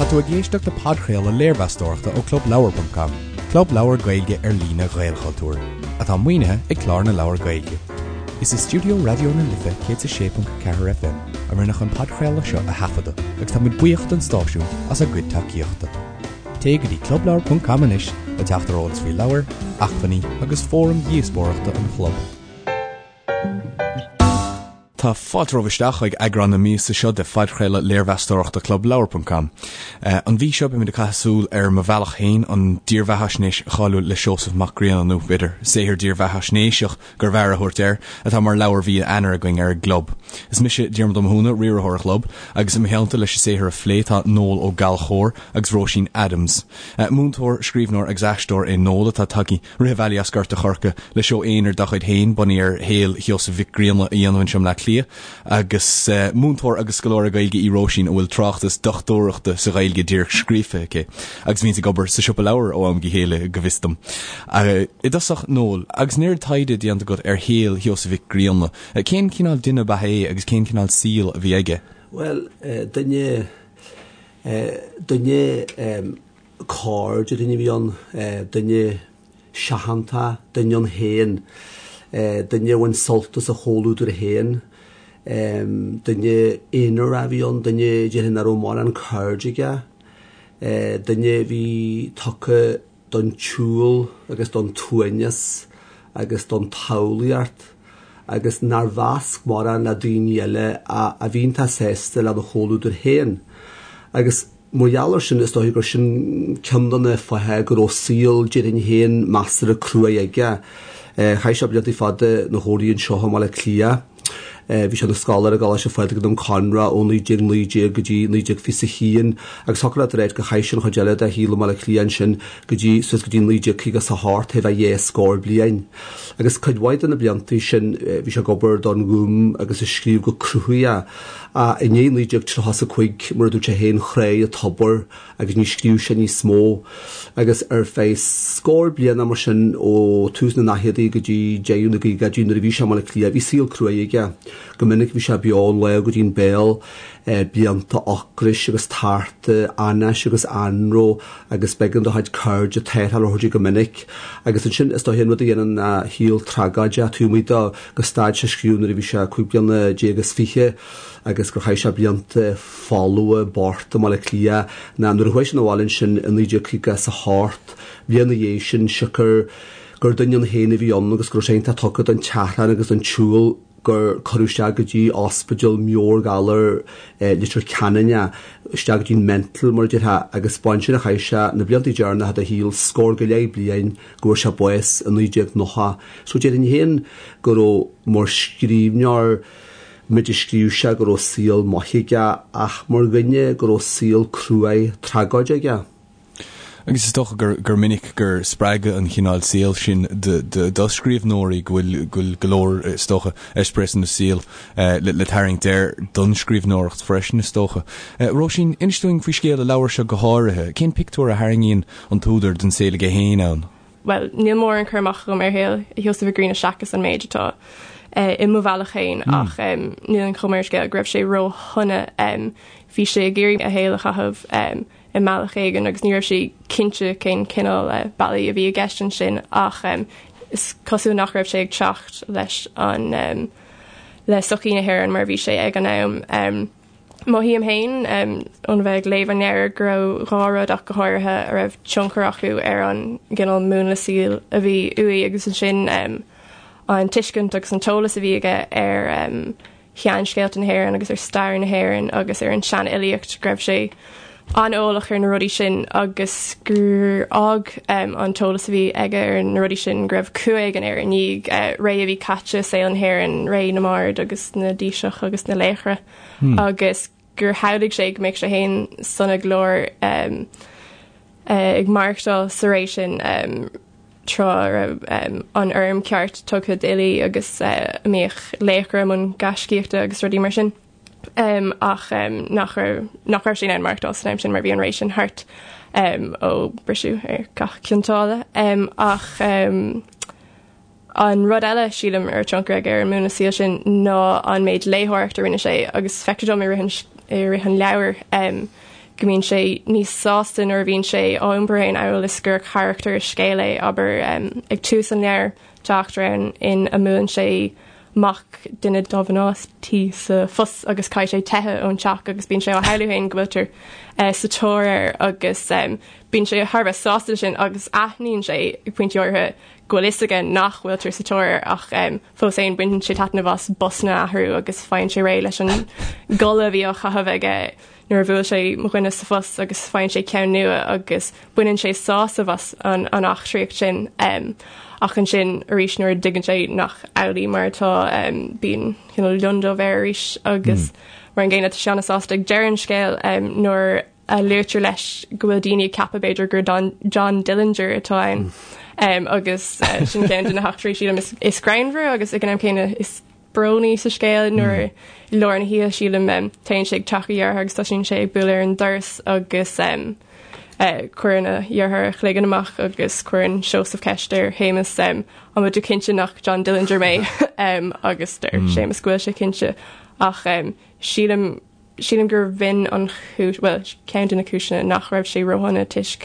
Tá tú ag éisteacht le podchraoladh léirmheastóireachta ó ClubLeabhar.com, club leabhar Gaeilge ar líne Ghaelchultúir, atá maoinithe ag Clár na Leabhar Gaeilge. Is i stiúideo Raidió na Life 106.4 FM a rinneadh an podchraoladh seo a thaifeadadh agus táimid buíoch don stáisiún as a gcuid tacaíochta. Téigh go dtí clubleabhar.com anois le teacht ar eolas faoi leabhair, acmhainní agus fóraim dhíospóireachta an chlub. Tá fáilte romhaibh isteach chuig eagrán na míosa seo de phodchraoladh léirmheastóireachta ClubLeabhar.com. An mhí seo beimid ag caitheamh súil ar Mo Bhealach Féin, an dírbheathaisnéis cháiliúil le Seosamh Mac Grianna, nó b'fhéidir saothar dírbheathaisnéiseach gurbh fhearr a thabhairt air, atá mar leabhar mhí Eanáir againn ar an gclub. Is mise Diarmuid Ó Mathúna, riarthóir an chlub, agus i mo theannta leis an saothar a phlé tá Noel Ó Gallchóir agus Róisín Adams. Múinteoir, scríbhneoir agus aisteoir é Noel atá tagtha Rith an bhealaigh as Gort a' Choirce le seó aonair dá chuid féin, bunaithe ar shaol Sheosaimh Mhic Grianna a dhéanamh anseo i mBleá Cliath, agus múinteoir agus scoláire Gaeilge í Róisín a bhfuil tráchtas dochtúireachta sa Ghaeilge díreach scríofa aici, agus a bhíonns ag obair sa siopa leabhar ó am go chéile, go bhfios dom. I dtosach, Noel, agus an oiread taighde déanta agat ar shaol Sheosaimh Mhic Grianna, cén cineál duine ab ea é agus cén cineál saoil a bhí aige? Bhuel, duine, duine, Cairde duine a bhí ann, duine seachanta, duine ann féin, duine a bhain sult as a chomhluadar féin, duine aonarach a bhí ann, duine déarfainn nach raibh mórán cairde aige, duine a bhí tugtha don tsiúl agus don tsuaimhneas agus don tsamhlaíocht agus nár mheasc mórán le daoine eile a bhí iontach sásta lena chomhluadar féin. Agus. Mar gheall air sin, is dóiche gur sin ceann de na fátha go raibh saol, déarfainn féin, measartha cruaidh aige. Chaith sé blianta fada ina chónaí anseo i mBaile Átha Cliath. Bhí sé ina scoláire i gColáiste Phádraig i nDún Conra ó 1919 go dtí 1921 agus thiocfadh leat a ráit gur chaith sé an chuid eile dá shaol i mBaile Átha Cliath ansin go dtí, suas go dtí 1958, thart fá dhá scór bliain. Agus cuid mhaith de na blianta sin bhí sé ag obair don Ghúm agus ag scríobh go cruthaitheach. Ach i ndiaidh 1935, mar a dúirt sé féin, thráigh an tobar agus ní scríobh sé níos mó. Agus ar feadh scór bliana mar sin, ó tús na ndaicheadaí go dtí deireadh na gcaogaidí nuair a bhí sé i mBaile Átha Cliath, bhí saol cruaidh aige. Go minic bhí sé beo ón lámh go dtí an béal, blianta ocrais agus tarta, anáis agus anró agus b'éigean dá chuid cairde tarrtháil a thabhairt dó go minic. Agus ansin, is dóiche, an rud a dhéanann a shaol tragóideach taobh amuigh de, gur stad sé scríobh nuair a bhí sé 25 bliana agus gur chaith sé blianta folmha bochta i mBaile Átha Cliath ná nuair a chuaigh sé 'na bhaile ansin i 1958, bliain ina dhiaidh sin, siocair gur duine ann féin a bhí ann agus go raibh sé iontach tugtha don tseachrán agus don tsiúl gur cuireadh isteach go dtí ospidéal meabhairghalair Leitir Ceanainn é, isteach go dtí an mental mar a déarfá, agus b'ansin a chaith sé na blianta deireanacha dá shaol, scór go leith bliain. go bhfuair sé bás i 1990. So déarfainn féin go raibh, mar scríbhneoir, méid a scríobh sé, go raibh saol maith aige ach mar dhuine go raibh saol cruaidh tragóideach aige. Agus is dócha gur gur minic gur spreagadh an chineál saoil sin do scríbhneoirí, go bhfuil go bhfuil go leor, is dócha, eispéireas saoil le tarraingt air don scríbhneoireacht freisin, is dócha. Róisín, inis dúinn faoi scéal an leabhair seo go háirithe. Cén pictiúr a tharraingíonn an t-údar den saol aige féin ann. Bhuel, níl mórán cur amach agam ar shaol Sheosaimh Mhic Grianna seachas an méid atá i Mo Bhealach Féin ach níl an chuma ar an scéal go raibh sé róshona. Bhí sé ag iarraidh a shaol a chaitheamh i mbealach éigin agus ní raibh sé cinnte cén cineál bealaí a bhí i gceist ansin ach is cosúil nach raibh sé ag teacht leis an le sochaí na hÉireann mar a bhí sé ag an am. Mothaím féin, óna bheith ag léamh an leabhair, go raibh dhá rud ach go háirithe a raibh tionchar acu ar an gcineál múnla saoil a bhí uaidh agus ansin an tuiscint agus an t-eolas a bhí aige ar sheanscéalta na hÉireann agus ar stair na hÉireann agus ar an seanfhilíocht, go raibh sé an-eolach ar na rudaí sin agus gur fhág an t-eolas a bhí aige ar na rudaí sin go raibh cumha éigin air i ndiaidh ré a bhí caite i saol na hÉireann, ré na mbard agus na dtaoiseach agus na laochra agus gur shamhlaigh sé go mbeadh sé féin sona go leor ag maireachtáil sa ré sin tráth a raibh an urraim ceart tugtha d'fhilí agus a mbíodh laochra i mbun gaiscíochta agus rudaí mar sin. ach nach raibh nach raibh sé in ann maireachtáil san am sin mar bhí an ré sin thart ó briseadh ar Chath Chionn tSáile. Ach an rud eile sílim a raibh tionchar aige ar an múnla saoil sin ná an méid léitheoireachta a rinne sé agus feictear dom i rith an i rith an leabhair. go mbíonn sé níos sásta nuair a bhíonn sé á iompar féin amhail is gur carachtar i scéal é, abair, ag tús an leabhair, tá eachtra ann ina mbuaileann sé mac duine dá mhná tí sa bhus agus caithfidh sé teitheadh ón teach agus bíonn sé á shamhlú féin go bhfuiltear sa tóir air agus bíonn sé thar a bheith sásta leis sin agus aithníonn sé ag pointí áirithe go bhfuil fhios aige nach bhfuiltear sa tóir air ach fós féin baineann sé taitneamh as busanna a athrú agus faigheann sé réidh leis an gculaith a bhí á chaitheamh aige nuair a bhuail sé mo dhuine sa bhus agus faigheann sé ceann nua agus baineann sé sásamh as an eachtraíocht sin. Ach ansin arís nuair a dtuigeann sé nach amhlaidh mar atá bíonn cineál lionndubh air arís agus mar an gcéanna tá sé an-sásta ag deireadh an scéil nuair a luaitear leis go bhfuil daoine ag ceapadh b'fhéidir gur John Dillinger atá ann agus sin ceann de na heachtraí sílim is greannmhaire agus ag an am céanna is brónaí sa scéal nuair i lár na hoíche sílim téann sé ag teach a dhearthár agus tosaíonn sé ag bualadh ar an doras agus cuireann a dheartháir a chloigeann amach agus cuireann Seosamh ceist ar Shéamus an bhfuil tú cinnte nach John Dillinger mé agus deir Séamus go bhfuil sé cinnte ach sílim Sílim gur b'in an chúis, bhuel, ceann de na cúiseanna nach raibh sé róshona toisc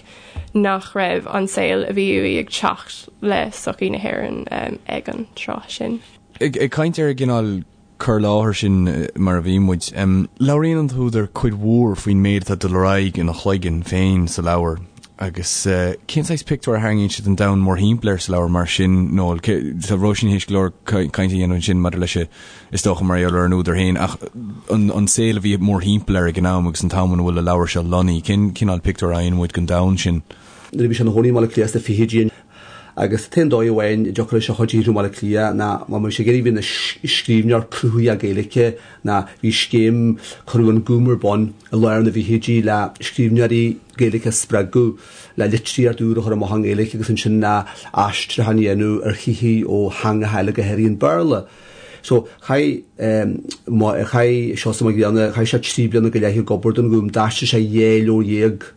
nach raibh an saol a bhí uaidh ag teacht le sochaí na hÉireann ag an tráth sin. Ag caint ar an gcineál cur i láthair sin mar a bhí muid, labhraíonn an t-údar cuid mhór faoin méid atá ag dul ar aghaidh ina chloigeann féin sa leabhar. Agus cén saghas pictiúr a tharraingíonn sé den domhan mórthimpeall air sa leabhar mar sin, Noel? Tá Róisín théis go leor cainte a dhéanamh ansin maidir leis is dócha, mar gheall ar an údar féin, ach an saol a bhí mórthimpeall air ag an am agus an t-am ina bhfuil an leabhar seo lonnaithe, cén cineál pictiúr a fhaigheann muid den domhan sin? Nuair a bhí sé ina chónaí i mBaile Átha Cliath sna fichidí agus an t-aon dóigh amháin a dtiocfadh leis a chuid a shaothrú i mBaile Átha Cliath ná má bhí sé ag iarraidh bheith ina scríbhneoir cruthaitheach Gaeilge ná bhí scéim, cuireadh an Gúm ar bun i lár na bhfichidí le scríbhneoirí Gaeilge a spreagadh le litríocht úr a chur amach i nGaeilge agus ansin le aistriúchán a dhéanamh ar shaothair ó theangacha eile go háirithe an Béarla. So, chaith, chaith Seosamh Mac Grianna, chaith sé 3 bliana go leith ag obair don Ghúm, d'aistrigh sé 12 leabhar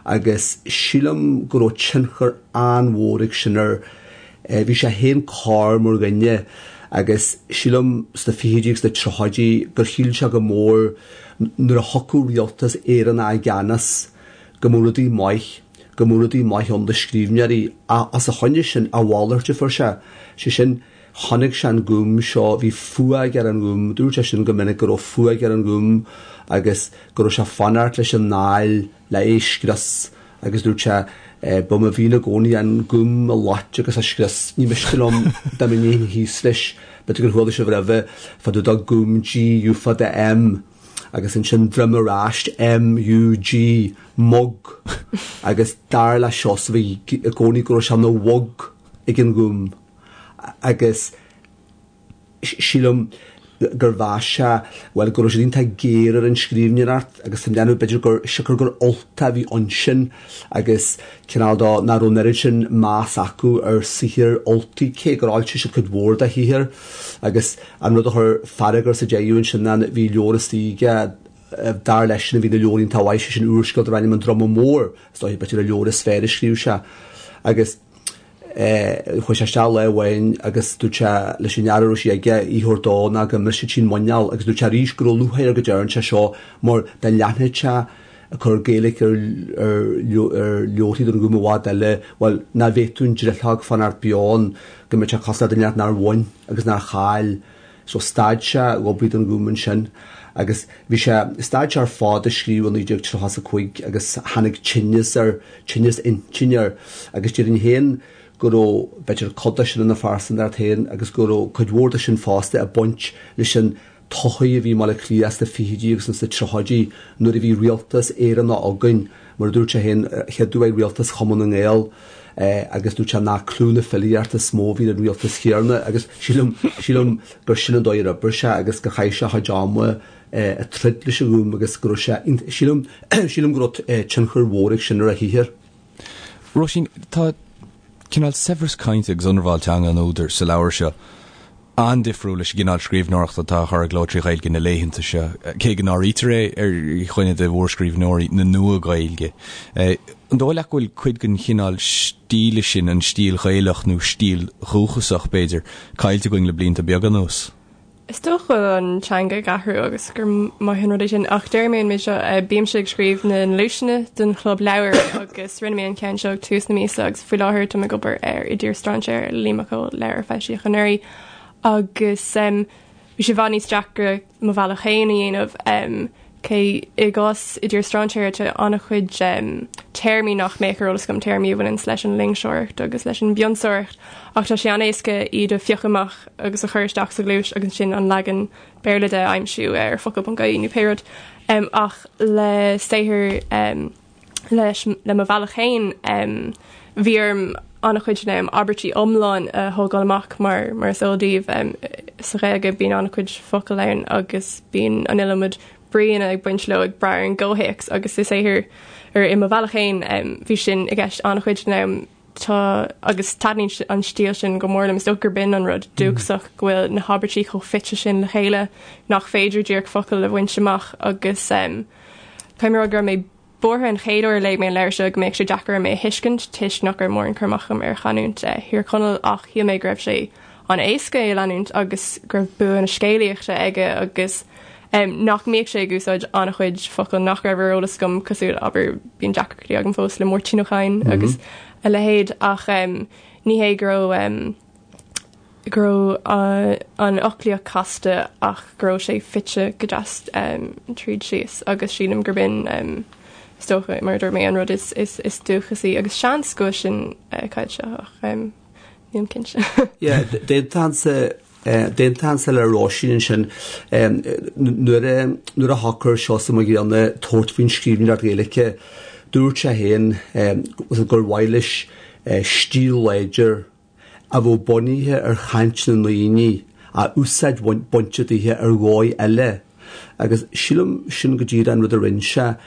agus sílim go raibh tionchar an-mhór ag sin air. Bhí sé féin corr mar dhuine agus sílim sna fichidí agus sna tríochaidí gur shíl sé go mór nuair a thiocfadh rialtas Éireannach i gceannas go mbeadh rudaí maith, go mbeadh rudaí maith ann do scríbhneoirí ach os a choinne sin, a mhalairt a fuair sé, sé sin, Chonaic sé an Gúm seo, bhí fuath aige ar an nGúm, dúirt sé sin go minic go raibh fuath aige ar an nGúm agus go raibh sé ag fanacht leis an nDáil le é a scrios agus dúirt sé ba mo mhian i gcónaí an Gúm a loit agus a scrios, ní miste liom dá mba ndéanfainn thíos leis, b'fhéidir gur chuala sibh roimhe fá dtaobh de Gúm G U fada M agus ansin droim ar ais M U G mug agus dar le Seosamh i gcónaí go raibh sé ina mhug ag an nGúm. agus sílim gur mheas sé, bhuel, go raibh siad iontach géar ar an scríbhneoireacht agus tá mé ag déanamh b'fhéidir gur siocair gur Ultach a bhí ansin agus cineál de nach raibh an oiread sin meas acu ar saothar Ultaigh, cé gur fhoilsigh siad cuid mhór dá shaothar agus an rud a chuir fearg air sa deireadh ansin ná bhí leabhar istigh aige dar leisean a bhí ina leabhar iontach mhaith, sé sin úrscéal darb ainm An Druma Mór, is dóiche b'fhéidir an leabhar is fearr a scríobh sé agus. Chuaigh sé isteach lá amháin agus dúirt sé leis an fhear a raibh sí aige í a thabhairt dó nó go mbrisfeadh sí an muineál agus dúirt sé arís go raibh lúcháir air go dtearn sé seo mar dá leanfadh sé ag cur Gaeilge ar leabharthaí don Ghúm i bhfad eile, bhuel, nach bhféadfadh an drithleog fanacht beo ann, go mbeadh sé cosúil le duine inteacht nár bhain agus nár chaill. So stad sé ag obair don Ghúm ansin agus bhí sé, stad sé ar fad ag scríobh i 1935 agus tháinig tinneas air, tinneas intinne air agus déarfainn féin go raibh, b'fhéidir, cuid de sin ina phearsantacht féin agus go raibh cuid mhór de sin fosta ag baint leis an tsochaí a bhí i mBaile Átha Cliath sna fichidí agus sna tríochaidí nuair a bhí rialtas Éireannach againn, mar a dúirt sé féin, chéaduair rialtas Chumann na nGael agus dúirt sé nach clú na filíochta is mó a bhí ar an rialtas chéanna agus sílim, sílim gur sin an dóigh ar oibrigh sé agus gur chaith sé a chuid ama ag troid leis an Ghúm agus go raibh sé, sílim, sílim go raibh tionchar mhór ag sin ar a shaothar. Róisín, tá cineál saibhreas cainte agus ionramháil teanga an údair sa leabhar seo. an-difriúil leis an gcineál scríbhneoireachta atá á chur i gcló trí Ghaeilge na laethanta seo, cé go n-áirítear é ar dhuine de mhórscríbhneoirí na Nua-Ghaeilge. An dóigh leat go bhfuil cuid den chineál stíle sin, an stíl Ghaelach nó stíl dhúchasach, b'fhéidir, caillte againn le blianta beaga anuas? Is dócha go bhfuil an teanga ag athrú agus gur maith an rud é sin, ach déarfaidh mé an méid seo, bímse ag scríobh na ngluaiseanna don chlub leabhar agus rinne mé an ceann seo ag tús na míosa agus faoi láthair táim ag obair ar I dTír Strainséara le Liam Mac Cóil, leabhar a foilsíodh anuraidh agus bhí sé i bhfad níos deacra Mo Bhealach Féin a dhéanamh. Cé i gcás I dTír Strainséara tá an-chuid téarmaí nach mbeadh ar eolas agam, téarmaí a bhaineanns leis an loingseoireacht agus leis an bpionsóireacht, ach tá sé an-éasca iad a phiocadh amach agus a chur isteach sa ghluais agus ansin an leagan Béarla de a aimsiú ar focal.ie nó pé rud. Ach le saothar leis le Mo Bhealach Féin, bhí orm an-chuid den am abairtí iomlán a thógáil amach mar mar is eol daoibh sa Ghaeilge bíonn an-chuid focal ann agus bíonn an iliomad bríonna ag baint leo ag brath ar an gcomhthéacs agus i saothar ar i Mo Bhealach Féin bhí sin i gceist an-chuid den am Tá, agus taitníonn an stíl sin go mór liom. Is dócha gurb in an rud dúchasach, go bhfuil na habairtí chomh fite sin le chéile nach féidir díreach focal a bhaint amach agus caithfidh mé a rá go raibh mé buartha an chéad uair a léigh mé an leabhar seo go mbeadh sé deacair orm é a thuiscint toisc nach raibh mórán cur amach agam ar chanúint Thír Chonaill ach shíl mé go raibh sé an-éasca é a leanúint agus go raibh bua na scéalaíochta aige agus nach mbíodh sé ag úsáid an-chuid focal nach raibh ar eolas agam cosúil, abair, bíonn deacrachtaí agam fós le Máirtín Ó Cadhain agus a leithéid ach ní hé go raibh go raibh an fhoclaíocht casta ach go raibh sé fite go deas tríd síos agus sílim gurb in is dócha, mar a dúirt mé, an rud is dúchasaí agus seans go bhfuil sin caillte ach nílim cinnte. Yeah, d'aontóinnse D'aontóinnse le Róisín ansin. Nuair a nuair a shocair Seosamh Mac Grianna tabhairt faoin scríbhneoireacht Ghaeilge, dúirt sé féin gur mhaith leis stíl láidir a bheadh bunaithe ar chaint na ndaoine ach úsáid bainte daoithe ar dhóigh eile. Agus sílim sin go díreach an rud a rinne sé.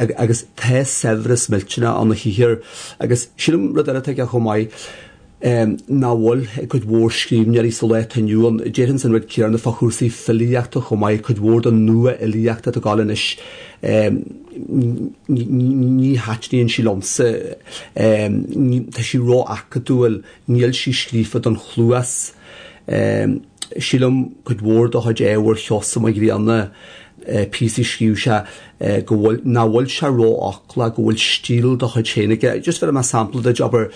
Agus tá saibhreas millteanach ann a shaothar. Agus sílim rud eile atá aige chomh maith, nach bhfuil ag cuid mhór scríbhneoirí sa lá atá inniu ann. Déarfainnse an rud céanna fá chúrsaí filíochta chomh maith, cuid mhór den nua-fhilíocht atá ag gabháil anois, ní thaitníonn sí liomsa, tá sí ró-acadúil, níl sí scríofa don chluas. Sílim cuid mhór de chuid ábhair Sheosaimh Mhic Grianna, píosaí a scríobh sé, go bhfuil, nach bhfuil sé rófhoclach, go bhfuil stíl dá chuid féin aige. Just bhéarfaidh mé sampla duit, abair,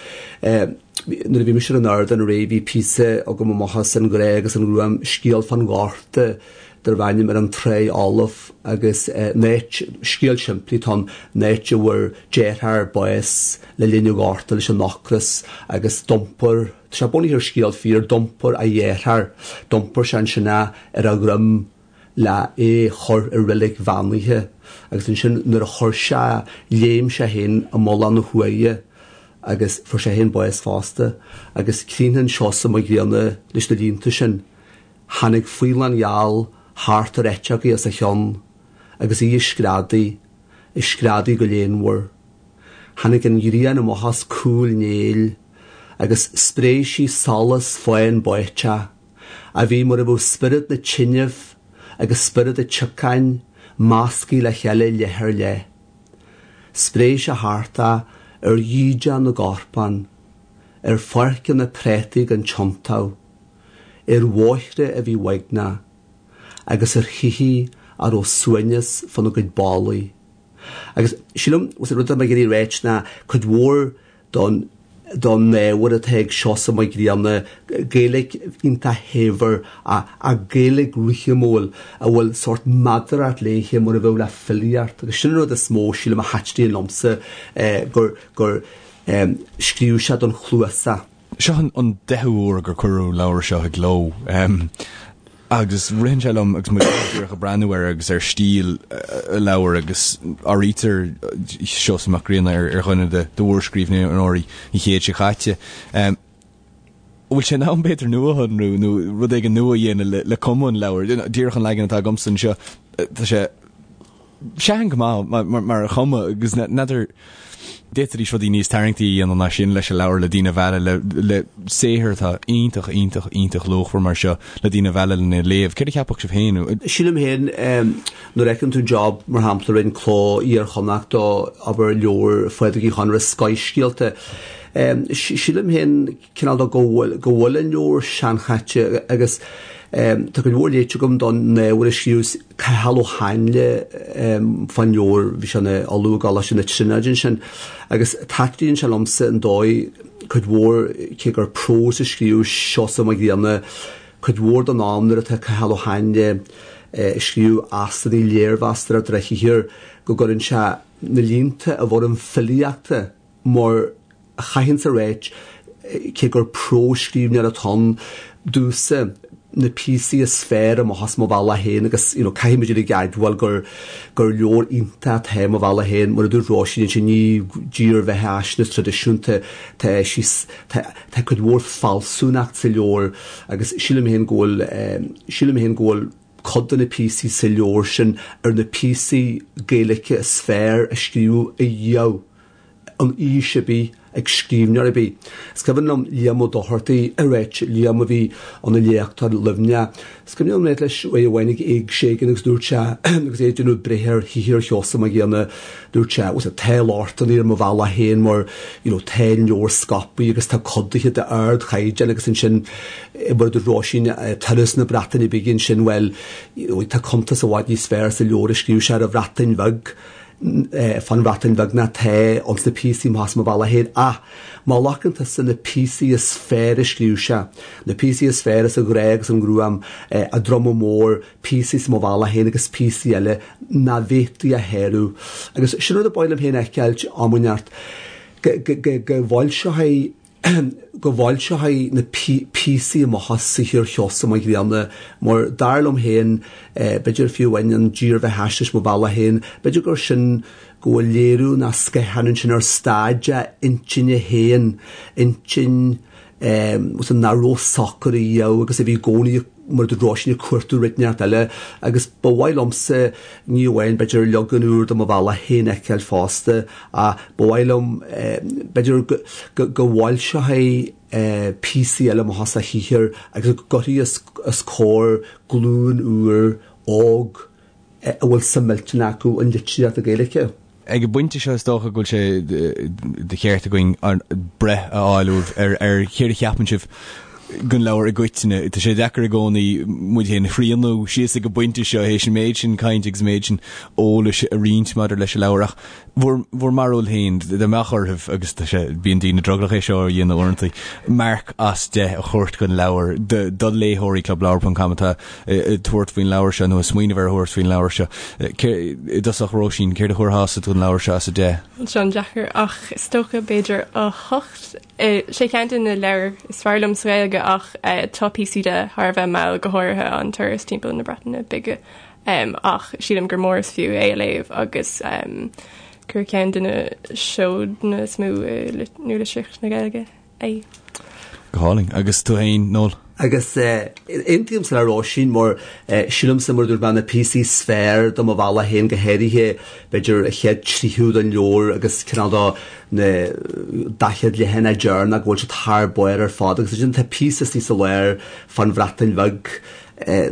nuair a bhí mise ar an ardán aréir bhí píosa agam amach as An Grá agus an Ghruaim, scéal fán Ghorta darb ainm Ar an Tráigh Fholamh agus an áit, scéal simplí atá ann, an áit a bhfuair deartháir bás le linn an Ghorta leis an ocras agus d'iompair, tá sé bunaithe ar scéal fíor, d'iompair a dheartháir, d'iompair sé ansin é ar a dhroim le é chur i reilig bheannaithe agus ansin nuair a chuir sé, léim sé féin i mullach na huaighe agus fuair sé féin bás fosta agus críochnaíonn Seosamh Mac Grianna leis na línte sin, Tháinig faoileán gheal thart ar eiteogaí os a chionn agus í ag screadaigh, ag screadaigh go léanmhar. Tháinig an ghrian amach as cúl néill agus spréigh sí solas fáin báiteach. a bhí mar a bheadh spiorad na tineadh agus spiorad an tsiocáin measctha le chéile leith ar leith. Spréigh sé thart é ar dhídean na gcorpán, ar pháirceanna préataí gan tiontú, ar bhóithre a bhí uaigneach, agus ar thithe a raibh suaimhneas fána gcuid ballaí. Agus sílim, an rud atá mé ag iarraidh a ráit ná cuid mhór don don ábhar atá ag Seosamh Mac Grianna, Gaeilge iontach shaibhir ach Gaeilge rithimiúil a bhfuil sórt meadaracht léithe mar a bheadh le filíocht agus sin an rud is mó sílim a thaitníonn liomsa gur gur scríobh sé don chluas é. Seo an deichiú huair gur cuireadh an leabhar seo i gcló. Agus ritheann sé liom agus muid díreach ag breathnú air agus ar stíl an leabhair agus áirítear Seosamh Mac Grianna ar dhuine de mhórscríbhneoirí an chéid seo caite. An bhfuil sé in am b'fhéidir nuashonrú nó rud éigin nua a dhéanamh le cuma an leabhair? Díreach an leagan atá agamsa anseo, tá sé sean go maith mar chuma agus n'fheadar d'fhéadfaidís rudaí níos tarraingtí a dhéanamh ná sin leis an leabhar le daoine a mhealladh le saothar atá iontach iontach iontach luachmhar mar seo le daoine a mhealladh lena léamh. Céard a cheapfadh sibh féin? Sílim féin nuair a fheiceann tú job mar shampla a rinne Cló Iar-Chonnacht do abair leabhar Phádraig Uí Chonaire Scoithscéalta. Sílim féin cineál de go bhfuil go bhfuil an leabhar seanchaite agus. Tá cuid mhór léite agam don ábhar a scríobh Cathal Ó Háinle fán leabhar, bhí sé ina ollamh i gColáiste na Tríonóide ansin, agus taitníonn sé liomsa an dóigh, cuid mhór, cé gur prós a scríobh Seosamh Mac Grianna, cuid mhór den am nuair atá Cathal Ó Háinle ag scríobh aisteanna léirmheastóireachta ar a shaothar, go gcuireann sé na línte i bhfoirm filíochta mar a chaithfinnse a ráit, cé gur prósscríbhneoir atá ann, domhsa, na píosaí is fearr amach as Mo Bhealach Féin agus you know caithfidh muid uilig a admháil gur gur leabhar iontach atá i Mo Bhealach Féin mar a dúirt Róisín ansin ní dírbheathaisnéis traidisiúnta tá sí tá tá cuid mhór fealsúnacht sa leabhar agus sílim féin go bhfuil sílim féin go bhfuil cuid de na píosaí sa leabhar sin ar na píosaí Gaeilge is fearr a scríobhadh ariamh in aois ar bith ag scríbhneoir ar bith. Is cuimhin liom Liam Ó Dochartaigh ag ráit, Liam a bhí ina léachtóir i Luimneach, is cuimhin liom ráit leis uair amháin ag éigse éigin agus dúirt sé, agus é ag déanamh breithe ar shaothar Sheosaimh Mhic Grianna, dúirt sé, bhuel tá lochtanna ar Mo Bhealach Féin mar you know tá an leabhar scaipthe agus tá codaithe d'ardchaighdeán agus ansin mar a dúirt Róisín, turas na Breataine Bige ansin, bhuel you know tá cuntas i bhfad níos fearr sa leabhar a scríobh sé ar an Bhreatain Bheag. fán Bhreatain Bheag ná tá ins na píosaí amach as Mo Bhealach Féin ach má ghlacann tusa na píosaí is fearr a scríobh sé, na píosaí is fearr as An Grá agus an Ghruaim, An Druma Mór, píosaí as Mo Bhealach Féin agus píosaí eile nach bhféadfaí a shárú. Agus sin rud a ba mhaith liom féin a fheiceáilt am inteacht, go bhfoilseofaí go bhfoilseofaí na píosaí amach as saothar Sheosaimh Mhic Grianna mar dar liom féin, b'fhéidir fiú amháin an dírbheathaisnéis Mo Bhealach Féin, b'fhéidir gur sin go bhfuil léiriú ná scáthán ansin ar staid a intinne féin, intinn nach raibh socair riamh agus a bhí i gcónaí mar a dúirt Róisín ag cuartú rud inteacht eile agus ba mhaith liomsa ní amháin b'fhéidir leagan úr de Mo Bhealach Féin a fheiceáil fosta ach ba mhaith liom b'fhéidir go bhfoilseofaí píosaí eile amach as a shaothar agus go gcuirfí os comhair glúin úr óg a bhfuil suim millteanach acu i litríocht na Gaeilge. Ag an bpointe seo is dócha go bhfuil sé de cheart againn breith a fháil uaibh ar céard a cheapann sibh den leabhar i gcoitinne. Tá sé deacair i gcónaí muid féin a shrianadh síos ag an bpointe seo théis an méid sin cainte agus an méid sin eolais a roinnt maidir leis an leabhar ach bhur bhur mbarúil féin, dá mbeadh oraibh, agus tá sé, bíonn daoine drogallach é seo a dhéanamh uaireanta, marc as 10 a thabhairt don leabhar do do léitheoirí Clubleabhar ponc com atá ag tabhairt faoin leabhar seo nó ag smaoineamh ar thabhairt faoin leabhar seo. I dtosach, Róisín, céard a thabharfása don leabhar seo as 10? Seo an-deacair ach is dócha b'fhéidir 8. Sé ceann de na leabhair is fearr liom sa Ghaeilge ach tá píosaí de thar a bheith mall, go háirithe an turas timpeall na Breataine Bige. Ach sílim gur mór is fiú é a léamh agus gur ceann de na seodanna is mó i nualitríocht na Gaeilge é. Go hálainn. Agus tú féin, Noel? Agus aontaímse le Róisín mar sílimse mar a dúirt mé na píosaí is fearr de Mo Bhealach Féin go háirithe b'fhéidir an chéad tríú den leabhar agus cineál de na 40 leathanach deireanach go bhfuil siad thar barr ar fad agus ansin tá píosa istigh sa lár fán Bhreatain Bheag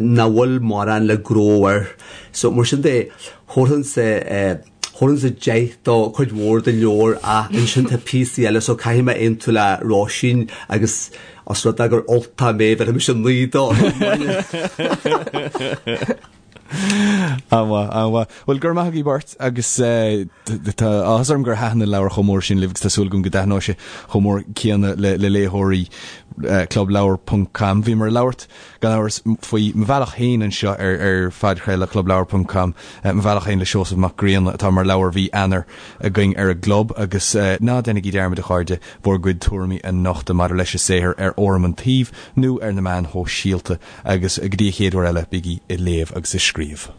nach bhfuil mórán le gnó air. So mar sin de, thabharfainnse, thabharfainnse 10 do chuid mhór den leabhar ach ansin tá píosaí eile so caithfidh mé aontú le Róisín agus os rud é gur Ultach mé bhéarfaidh mise 9 dó. An-mhaith, an-mhaith. Bhuel, go raibh maith agaibh beirt agus tá áthas orm gur thaitin an leabhar chomh mór sin libh agus tá súil agam go dtaitneoidh sé chomh mór céanna le léitheoirí clubleabhar ponc com. Bhíomar ag labhairt gan amhras, faoi Mo Bhealach Féin anseo ar phodchraoladh clubleabhar ponc com, Mo Bhealach Féin le Seosamh Mac Grianna atá mar leabhar mhí Eanáir againn ar an gclub agus ná déanaigí dearmad, a chairde, bhur gcuid tuairimí a nochtadh maidir leis an saothar ar fhóram an tsuímh nó ar na meáin shóisialta agus go dtí an chéad uair eile, bígí ag léamh agus ag scríobh.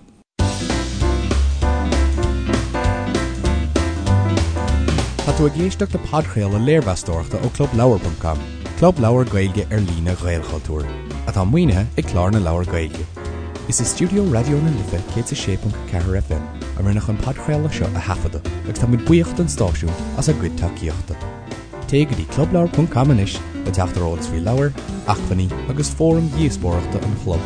Tá tú ag éisteacht le podchraoladh léirmheastóireachta ó Clubleabhar ponc com, club leabhar Gaeilge ar líne Ghaelchultúir, atá maoinithe ag Clár na Leabhar Gaeilge. Is i stiúideo Raidió na Life 106.4 FM a rinneadh an podchraoladh seo a thaifeadadh agus táimid buíoch don stáisiún as a gcuid tacaíochta. Téigh go dtí clubleabhar ponc com anois le teacht ar eolas faoi leabhair, acmhainní agus fóraim dhíospóireachta an chlub.